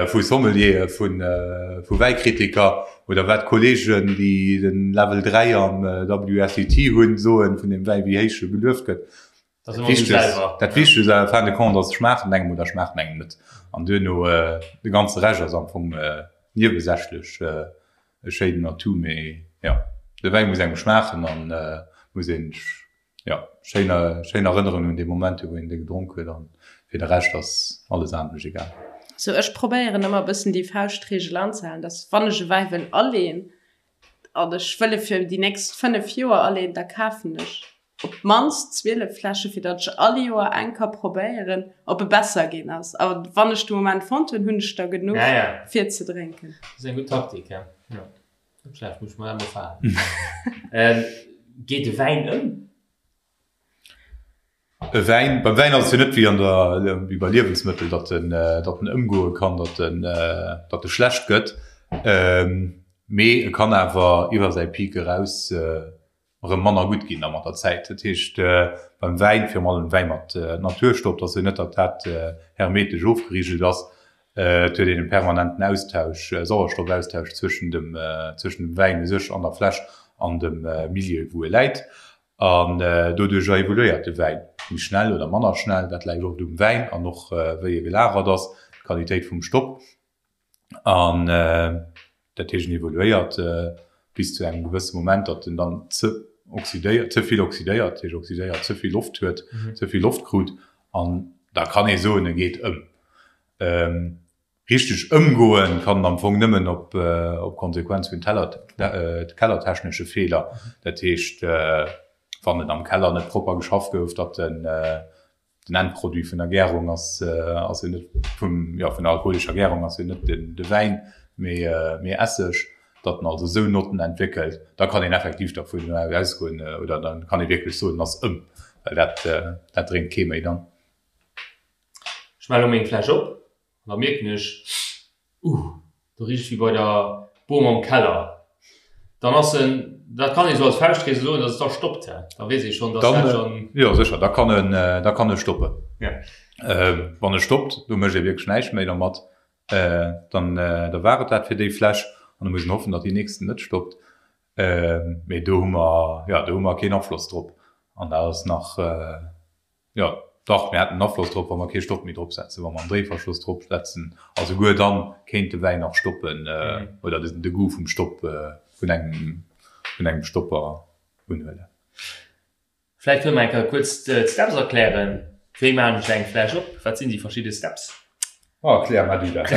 vu Sommeliere, vu Wäikritiker oder wat Kolleegen, déi den Level 3 am WSET hunn, soen vun deem Wäi, wéi héich e gelueft gëtt. Dat Wichtegst en fin de compte ass, schmaacht en engem oder schmaacht en engem net. An duerno, de ganze Rescht ass am Fong niewesächlech e schéinen Atout, mee jo, de Wäi muss engem schmaachen an muss een Jo, schéin, schéin Erënnerungen un déi Momenter, wou een dee gedronk huet an fir de Rescht ass alles anescht egal. Sou, ech probéieren ëmmer e bëssen déi Fauschtregel anzehalen, dass wann ech e Wäi wëll aleen an ech wëll e fir déi nächst 5 Joer aleen, da kafen ech op d'mannst 12 Fläsche fir datt ech all Joer eng ka probéieren, ob e besser ginn ass. A wann ech de Moment fonnt hunn, hunn ech der genuch fir ze drénken. Dat ass eng gutt Taktik, ja. Net schlecht, muss ech mer dat mol falen. Geet e Wäin ëm? E Wäin, beim Wäin ass et jo net wéi an der, wéi bei Liewensmëttel, datt en, datt en ëmgoe kann, datt en, datt e schlecht gëtt. Mee e kann awer iwwer säi Peak eraus erëm manner gutt ginn da mat der Zäit. Dat heescht beim Wäin, virun allem Wäi mat Naturstopp, dass jo net, datt dat hermetesch ofgerigelt ass. Et huet een e permanenten Austausch, Sauerstoffaustausch zwëschen dem, zwëschen dem Wäin u sech an der Fläsch an dem Milieu wou e läit. An doduercher evoluéiert de Wäin méi schnell oder manner schnell. Dat läit oft um Wäin an och wéi e gelagert ass, d'Qualitéit vum Stopp. An dat heescht, en evoluéiert bis zu engem gewësse Moment, datt en dann ze oxydéiert, ze vill oxydéiert, dat heescht oxydéiert, ze vill Loft huet, ze vill Loft krut. An da kann ee soen, e geet ëm. Richteg ëmgoen kann en am Fong nëmmen op Konsequenz vun kellertechnesche Feeler. Dat heescht, wann et am Keller net propper geschafft gouf, datt en Den Endproduit vun der Gärung ass ass jo net vum jo vun der alkoholescher Gärung ass jo net den de Wäin, mee mee Esseg, datt en also esou Notten entwéckelt, da kann een effektiv dervun ausgoen oder da kann ee wierklech soen, en ass ëm, well dat dat drénkt kee méi dann. Ech maache lo meng Fläsch op An da mierken ech, Uh, do richt et wéi bei der Bom am Keller. Dann ass en, dat kann ee sou als Fauschtregel soen, dass et da stoppt, hä? Da weess ee schonn, dass dat schonn. Jo, sécher, da kann en, da kann e stoppen. Wann e stoppt, do mécht ee wierklech näischt méi dermat. Dann da war et dat fir déi Fläsch an da muss een hoffen, datt déi nächsten net stoppt. Mee do hu mer, jo, do hu mer keen Afloss drop an dat ass nach, jo, dach, mir hätten en Afloss drop, wa mer kee Stopp méi drop setzen, wa mer en Dréiverschloss drop setzen a souguer dann kéint de Wäin nach stoppen oder de Goût vum Stopp vun engem, vun engem Stopper unhuelen. Vläicht kënne mer eng Kéier kuerz d'Steps erklären. Wéi maachen ech eng Fläsch op? Wat sinn déi verschidde Steps? Oh, erklär mar du dat.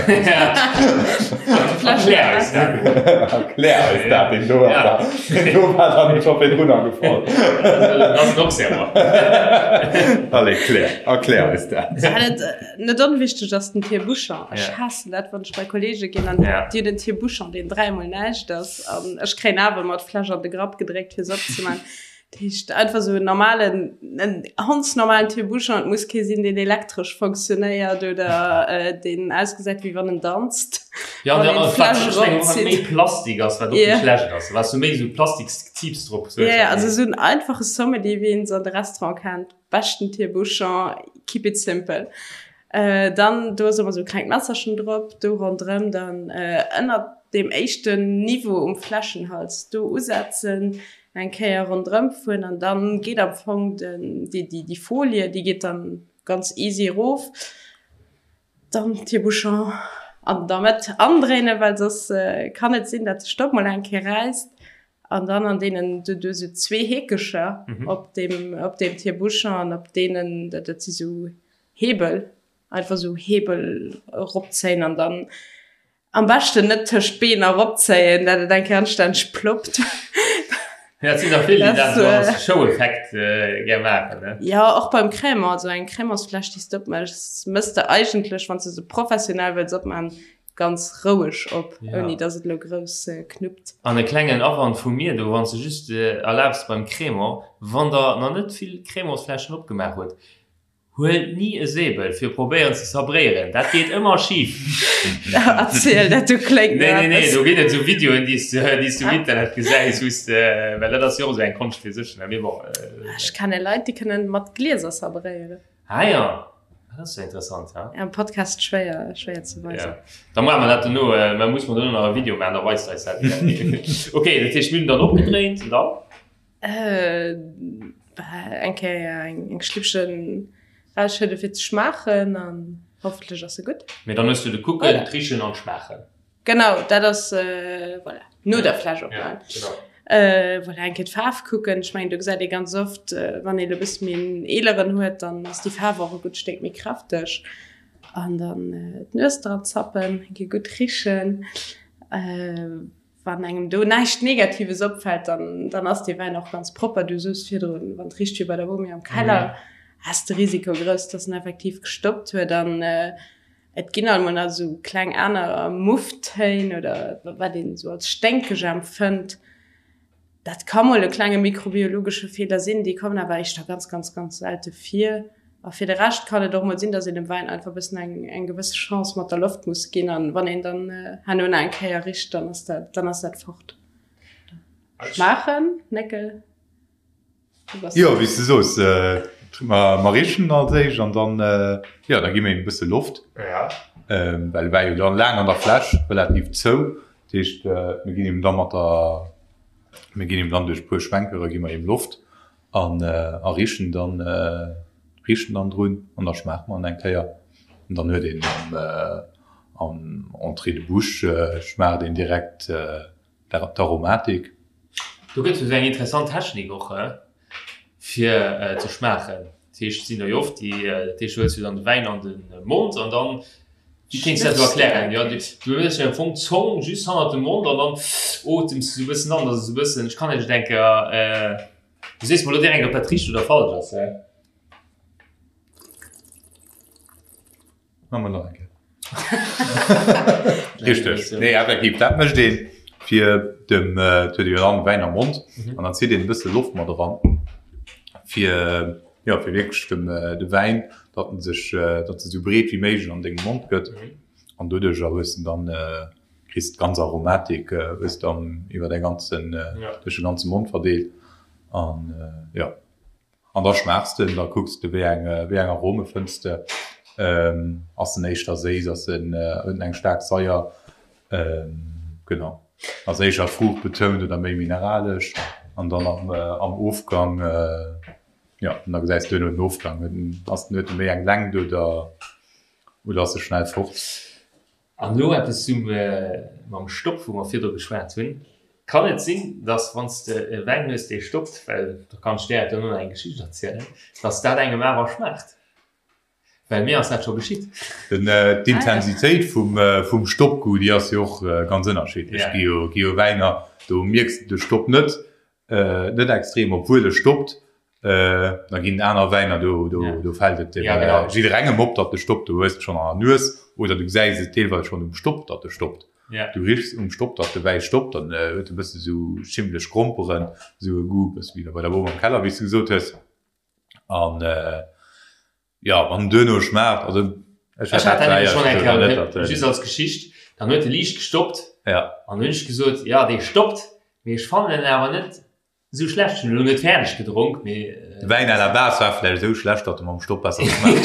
Erklär eis dat. Erklär eis dat, deen do ass da, deen do war dann scho virdrun agefall. Dat ass en Auxerrois. Allez, klär, erklär eis dat. Net onwichteg ass den Tire-bouchon. Ech haassen dat, wann ech bei Kollege ginn an déi hunn en Tire-bouchon, deen dräimol näischt ass an ech kréien awer ëmmer d'Fläsch an de Grapp gedréckt, fir se opzemaachen. Dat heescht einfach sou en normalen, en hondsnormalen Tire-bouchon. Et muss kee sinn, deen elektresch fonctionnéiert oder deen ausgesäit, wéi wann en danzt. Ja, an wat ech mengen, och wat méi Plastik ass, wat och méi schlecht ass. Wat s du méi sou Plastikszipes drop hues. Ja, also sou en einfache Sommelier, wéi een se an de Restaurant kennt. Beschten Tire-bouchon, keep it simple. Dann, do ass ëmmer sou e klengt Messerchen drop, do ronderëm dann ënnert deem éischten Niveau um Fläschenhals do usetzen, eng Kéier ronderëm fueren an dann geet am Fong den, déi, déi, déi Folie, déi geet dann ganz easy erof. Dann Tire-bouchon an der Mëtt andréinen, well soss kann et sinn, dat de Stopp mol eng Kéier räisst. An dann an deenen, du du sou zwee Heekecher op deem, op deem Tire-bouchon an op deenen, dat, dat si sou Hebel, einfach sou Hebel eropzéien an dann am beschten net tëscht d'Been eropzéien, dat et eng Kéier anstänneg ploppt. Ja, et sinn der vill, déi dat esou als Show-Effekt gär maachen, ne? Jo, och beim Crémant, also eng Crémantsfläsch, déi s de opméchs, méchs de eigentlech, wann s de se professionell wëlls opmaachen, ganz roueg op, ouni dass et elo grouss knuppt. An e klengen Awand vu mir do, wann s de just erlaabs beim Crémant, wann der nach net vill Crémantsfläschen opgemaach hutt, Huelt ni e Säbel fir probéieren ze sabréieren, dat geet ëmmer schif. Erziel dat, do kléngt Nee, nee, nee, do ginn et esou Videoen, déi s du um Internet gesäis, wou s de, well dat ass jo och esou eng Konscht fir sech, ne, mee bon. Ech kenne Leit, déi kënnen mat Glieser sabréieren. Ah jo, dat ass jo interessant, ha. Am Podcast schwéier, schwéier ze weisen. Ja, da maache mer dat dono, mä muss mer dono nach e Video maachen, da weist eis dat. Ok, dat heescht, mir hunn dann opgedréint, an dann? Eng Kéier eng Schlippchen rausschëdde fir ze schmaachen an hoffentlech ass se gutt. Mee dann hues du de Kucken, d'Richen an d'Schmaachen. Genau, dat ass voilà, no der Fläsch opmaachen. Voilà, eng Kéier d'Faarf kucken. Ech mengen do gesäit ee ganz oft, wann ee lo e bësse méi en eeleren huet, dann ass déi Faarf och e gutt Stéck méi kräfteg. An dann d'Nues dran zappen, eng Kéier gutt richen. Wann engem do näischt Negatives opfält, dann, dann ass dee Wäin och ganz propper. Du soos virdrun, wann et richt wéi bei der Bomi am Keller, ass de Risiko grouss, dass en effektiv gestoppt huet. An et ginn alt mol nach esou kleng aner Mufftéin oder wat een esou als sténkeg empfënnt. Dat ka mol e klenge mikrobiologesche Feeler sinn, déi kommen awer éischter ganz, ganz, ganz selte vir. A fir de Rescht kann et och mol sinn, dass een dem Wäin einfach e bëssen eng, eng gewësse Chance mat der Loft muss ginn. An wann een dann herno nach eng Kéier richt, dann ass dat, dann ass dat fort. Schmaachen, Néckel? Du bass. Jo, wéi s de soos, mer richen als éischt an dann, jo, da gi mer him e bësse Loft. Well e war jo dann laang an der Fläsch, relativ zou. Dat heescht, mir ginn him da mat der, mir ginn him dann duerch e puer Schwenkere gi mer him Loft an a richen dann, richen dann drun an da schmaache mer en eng Kéier. An dann huet een am, am Entrée de bouche schmaacht een direkt d'Aromatik. Do gëtt jo esou eng interessant Technik och fir ze schmaachen. Dat heescht, et sinn der jo oft déi, dat heescht, du huels jo dann de Wäin an de Mond an dann, wéi kéints du dat elo erklären? Jo, du hues jo am Fong d'Zong just hannert dem Mond an dann otems du esou e bëssen an, dass et esou e bëssen, ech kann net, ech denke, du sees mer elo direkt, ob dat richteg oder falsch ass. Machen wir nach eng Kéier. Richteg. Nee, effektiv, dat mécht een, fir dem, et huet ee jo dann Wäin am Mond an dann zitt een e bësse Loft mat eran, fir, jo, fir wierklech dem, de Wäin, datt en sech, datt e sou breet wéi méiglech an dengem Mond gëtt an doduercher hues de dann, kriss de d'ganz Aromatik hues de dann iwwer däi ganzen, duerch de ganze Mond verdeelt an, jo. An da schmaachs de, da kucks de wéi eng wéi eng Arome fënns de. Ass en éischter séiss, ass en, huet en eng staark Saier, genau, ass éischer fruuchtbetount oder méi mineralesch an dann am am Ofgang, jo, an da gesäis de duerno den Ofgang, huet en, ass en, huet e méi eng Längt oder oder ass e schnell fort. An elo eppes zum mam Stopp, wou mer virdru geschwat hunn. Kann et sinn, dass wann s de e Wäin hues, dee stoppt, well da kann ech där duerno nach eng Geschicht erzielen, dass dat engem awer schmaacht? Well mir ass dat scho geschitt. D'Intensitéit vum Stoppgoût, déi ass jo och ganz ënnerschiddlech. Gi jo gi jo Wäiner, do mierks de de Stopp net, net extrem, obwuel e stoppt. Da ginn et aner Wäiner, do do fält et dem jidderengem op, datt e stoppt. Du hues et schonn an der Nues oder du gesäis et deelweis schonn um Stopp, datt e stoppt. Du richs um Stopp, datt de Wäi stoppt, dann huet e bësse sou schimmleg Gromperen, sou e Goût, bësse wéi bei der Bom am Keller, wéi s du gesot hues. An jo, wann en duerno schmaacht, also ech hat dat nämlech schonn eng Kéier, just als Geschicht, dann huet e liicht gestoppt an hunn ech gesot, jo dee stoppt, mee ech fannen en awer net esou schlecht. Ech hunn elo net fäerdeg gedronk, mee. De Wäin à la base war vläicht esou schlecht, datt e mam Stopp besser geschmaacht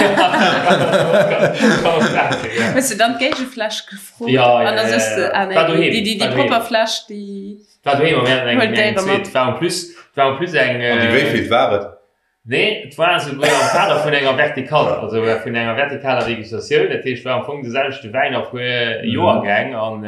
huet. Hues de dann d'Géigefläsch gefrot? An da soss de, ah nee, déi propper Fläsch, déi. War doheem a mir haten eng eng zweet. War en plus, war en plus eng. An déi wéivilt war et? Nee, et war esouguer am Kader vun enger Verticale, also vun enger vertikaler Degustatioun. Dat heescht, war am Fong de selwechte Wäin a puer Joergäng an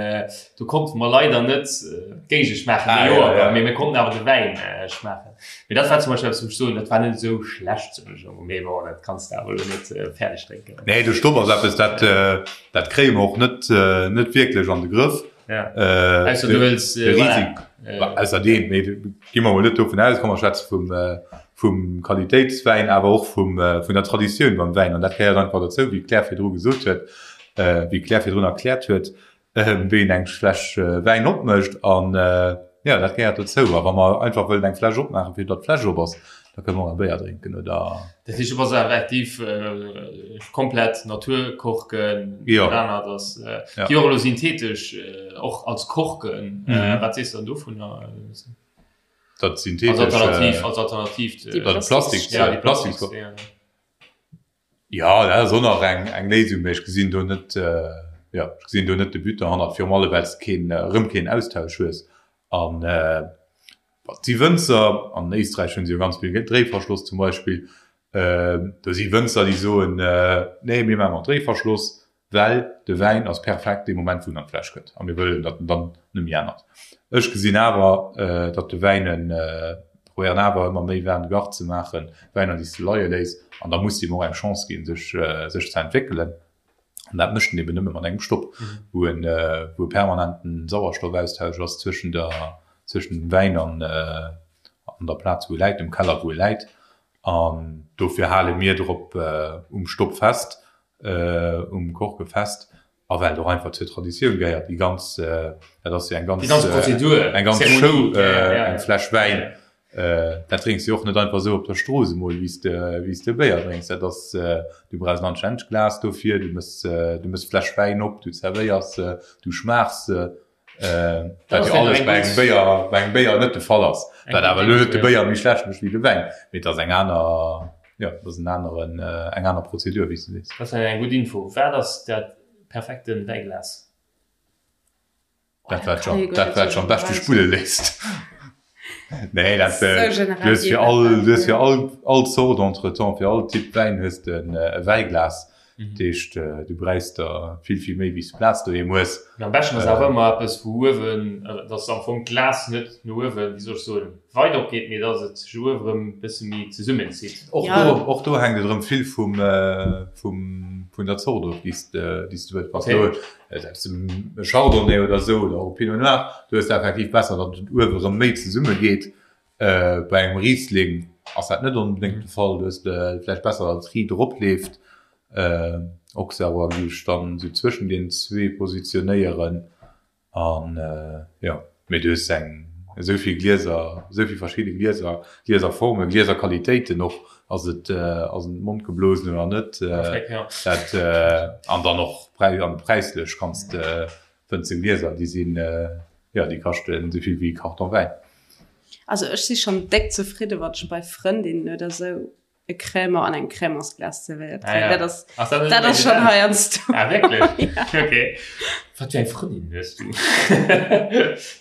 do konnte mer leider net d'Géige schmaachen, de Joergang, mee mir konnten awer de Wäin schmaachen. Mee dat war zum Beispill eppes, wou ech soen, dat war net esou schlecht, soen ech emol, mee bon, dat kanns de awer elo net fäerdeg drénken. Nee, de Stopp ass eppes, dat, dat kréie mer och net, net wierklech an de Grëff. Ja. Äh, Ausser du wëlls, äh, voilà. Äh, Ausserdeem, mee gi mer mol net dovun aus, komm mer schwätze vum, äh, vum Qualitéitswäin, awer och vum, äh, vun der Traditioun beim Wäin. An dat gehéiert einfach dozou, wéi d'Claire virdru gesot huet, äh, wéi d'Claire virdrun erkläert huet, äh, wéi een eng Fläsch äh, Wäin opmécht. An äh, ja, dat gehéiert dozou. A wa mer einfach wëllen eng Fläsch opmaachen, fir datt d'Fläsch op ass, da kënne mer och e Béier drénken oder. Dat heescht, du bass effektiv komplett Naturkorken, Jo. dat anert ass déi och elo synthetesch och als Korken. Wat sees de dann dovunner? Dat synthetesch. Als Alternativ, als Alternativ. Déi Plastik, ja, déi Plastik. Jo, dat ass och nach eng eng Léisung, mee ech gesinn do net, jo, ech gesinn do net de But derhannert, virum allem well s de keen, erëm keen Austausch hues. An et si Wënzer, an Éisträich hunn se jo ganz vill Dréiverschloss zum Beispill, do si Wënzer, déi soen, nee, mir maache mat Dréiverschloss, well de Wäin ass perfekt dee Moment, wou en an d'Fläsch kënnt a mir wëllen, datt en dann net méi ännert. Ech gesinn awer, datt de Wäin en, probéieren awer ëmmer méi Vin de garde ze maachen, Wäiner, déi s de leie léiss an da muss de him och eng Chance ginn, sech, sech ze entwéckelen. An dat mécht en eben nëmme mat engem Stopp, wou en, wou e permanenten Sauerstoffaustausch ass zwëschen der, zwëschen dem Wäin an, an der Plaz, wou e läit, dem Keller, wou e läit. An dofir hale mir drop um Stopp fest, um Korke fest a well et och einfach zur Traditioun gehéiert, déi ganz, dat ass jo eng ganz, déi ganz Prozedur, eng ganz Show, eng Fläsch Wäin, dat drénks de jo och net einfach esou op der Strooss emol, wéi s de, wéi s de Béier drénks. Dat ass, du brauchs en anstännegt Glas dofir, du mëss, du mëss d'Fläsch Wäin op, du zerwéiers se, du schmaachs se. Wat jo alles bei engem Béier, bei engem Béier net de Fall ass. Wat awer elo net de Béier méi schlecht mécht wéi de Wäin, mee et ass eng aner, jo, et ass en aneren, eng aner Prozedur, wéi s de sees. Dat ass eng gutt Info. Wat ass dat perfekte Wäiglas? Dat wat sech, dat wat sech am beschte spulle léisst. Nee, dat, du hues fir all, du hues fir all, all Zort entretemps, fir all Typ Wäin hues de e Wäiglas. Dat heescht, du bräichs der vill, vill méi, wéi s de Plaz doheem hues. Mee am beschten ass awer ëmmer eppes, wou uewen, dass am Fong d'Glas net no uewen, wéi soll ech soen, weit opgeet, mee dass et sech uewe rëm e bësse méi zesummenzitt. Och do, och do hänkt et erëm vill vum, vum, vun der Zort of, déi s de, déi s de wëlls. Wann s de Selbst e Chardonnay oder esou oder och e Pinot Noir, do hues de effektiv besser, datt et uewe rëm méi zesumme geet. Bei engem Riesling ass dat net onbedéngt de Fall, do hues de vläicht besser, datt et riit eropleeft. Auxerrois géif ech dann esou zwëschen deenen zwee positionéieren. An jo, mee du hues eng esou vill Glieser, esou vill verschidde Glieser, Glieserformen, Glieserqualitéiten och, ass et ass et mondgeblosen oder net, dat an dann och präis an präislech kanns de fënns de Glieser, déi sinn jo déi kaschten esou vill wéi e Karton Wäin. Also ech si schonn déck zefridde wann ech bei Frëndinnen oder esou. e Crémant an engem Crémantsglas zerwéiert kréien. Ah, ja. Dat ass, Ach, dat, dat ass schon heiansdo. Ah, wierklech? ja. Okay. Wat fir eng Frëndin hues du?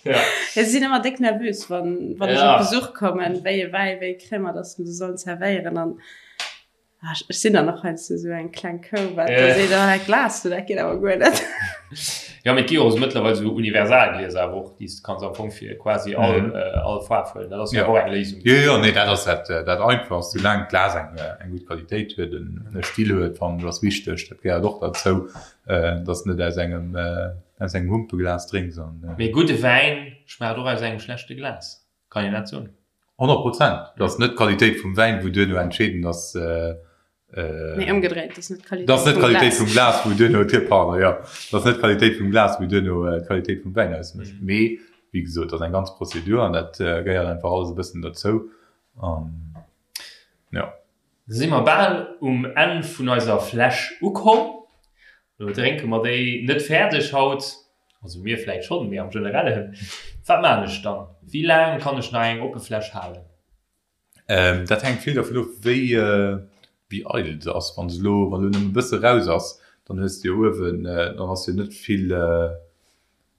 ja. Ja, si sinn ëmmer déck nervös, wann, wann ja. ech op Besuch kommen, wéi e Wäi, wéi e Crémant, dass se sollen zerwéieren. An ah, ech sinn dann och heiansdo esou eng kleng Kou, wat da seet, oh, dat Glas do, dat geet awer guer net. Ja, mee et gi jo och esou mëttlerweil esou Universalglieser awer och, déi s de kanns am Fong fir quasi all, mm. äh, all Faarf huelen. Dat ass jo och eng Léisung. Jo, jo, nee, dat ass dat, äh, dat Einfachst. Soulaang d'Glas eng, äh, eng gutt Qualitéit huet, en e Still huet, fannen ech ass wichteg. Dat gehéiert och derzou, äh, dass net aus engem, äh, aus engem Humpeglas drénks an. Äh, mee gudde Wäin schmaacht och aus engem schlechte Glas. Kann een dat soen? 100 Prozent. Et ass net d'Qualitéit vum Wäin, wou duerno entscheedend ass. Nee, ëmgedréit, et ass net d'Qualitéit vum Glas. Et ass net d'Qualitéit vum Glas, wou duerno, pardon, jo, et ass net d'Qualitéit vum Glas, wou duerno d'Qualitéit vum Wäin ausmécht. Mee, wéi gesot, et ass eng ganz Prozedur an dat gehéiert einfach alles e bëssen derzou. An, jo. Da si mer bal um Enn vun eiser Fläsch ukomm. Elo drénke mer déi net fäerdeg haut, also mir vläit schonn, mee am Generellen. Wat maan ech dann? Wéi laang kann ech nach eng oppe Fläsch halen? Dat hänkt vill dervun of, wéi wéi eidel se ass. Wann se elo, wann elo nëmme e bësse raus ass, dann hues de jo uewen, dann ass jo net vill,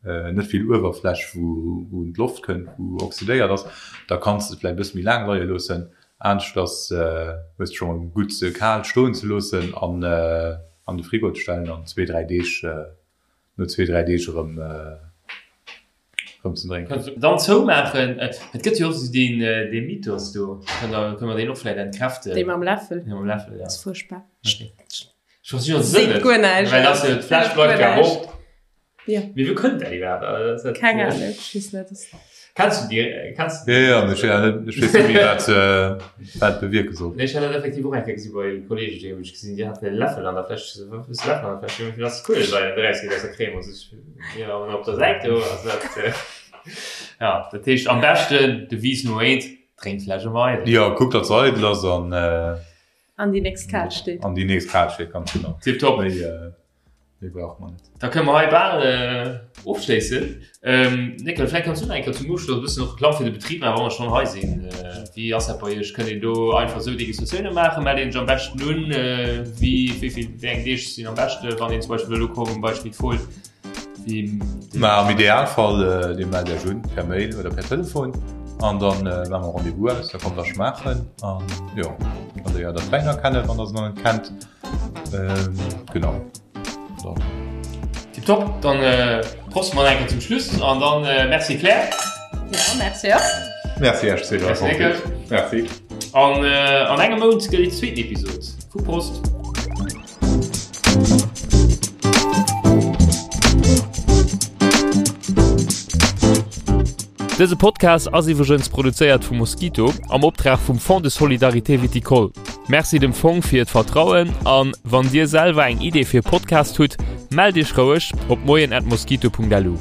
net vill Uewerfläch wou wou un d'Loft kënnt, wou oxydéiert ass, da kanns de se vläicht e bësse méi laang leie loossen. Aneschters hues de scho mol gutt se kal stoen ze loossen an an de Frigo ze stellen an zwee dräi Deeg, no zwee dräi Deeg erëm erëm ze drénken. Dann zoumaachen. Et gëtt jo och esou deen dee Mythos do, kënne mer deen och vläicht entkräften? Dee mam Läffel? Dee mam Läffel, ja. Ass fuerchtbar. Okay. Ech versti jo de Sënn net. Guer näischt. Well ass jo, d'Fläsch bleift jo awer op. Ja. Mee wou kënnt dat iwwerhaapt? Also, Keng Ahnung, ech weess net. Kenns du déi? Kenns du déi? Ja, ja, ech weess net méi, wat wat bewierke soll. Nee, ech hat dat effektiv och eng Kéier gesi bei Kolleegen, déi hunn ech gesinn, déi haten e Läffel an der Fläsch. Ech sou, Wat hues de Läffel an der Fläsch? Jo, fir dass d'Kuelesäier net erausgeet aus der Crème. Also ech, jo, an op der Säit do ass dat, ja, dat heescht am beschten, Devise Nummer eent, drénk d'Fläsch ëmmer eidel. Jo, kuck, datt se eidel ass an. An déi nächst kal steet. An déi nächst kal steet, ganz genau. Tiptop. Méi, méi brauch mer net. Da kënne mer hei bal ofschléissen. Néckel, vläicht kanns du nach eng Kéier zum Ofschloss e bëssen och Reklamm fir de Betrib maachen, wa mer schonn hei sinn. Wéi ass dat bei Iech? Kënnt een do einfach esou Degustatioune maachen? Mellt een sech am beschten un? Wéi, wéi vill, wéi eng Deeg sinn am beschte, wann een zum Beispill wëll ukommen bei Schmit Fohl? Ma am Idealfall, Dir mellt Iech un per Mail oder per Telefon an dann maache mer Rendez-vous aus, da kommt der schmaachen an jo, da léiert der d'Wäiner kennen, wann der se nach net kennt. Genau. Dann. Tiptop, dann prosten mer nach eng Kéier zum Schluss an dann Merci Claire. Ja, merci och. Merci Iech Cédric. Merci Nickel. Merci. An an engem Mount gëtt déi zweeten Episod vu Prost. Dëse Podcast ass iwwregens produzéiert vu Mosquito am Optrag vum Fonds de Solidarité Viticole. Merci dem Fong fir d'Vertrauen an wann Dir selwer eng Idee fir e Podcast hutt, mellt Iech roueg op moien@mosquito.lu.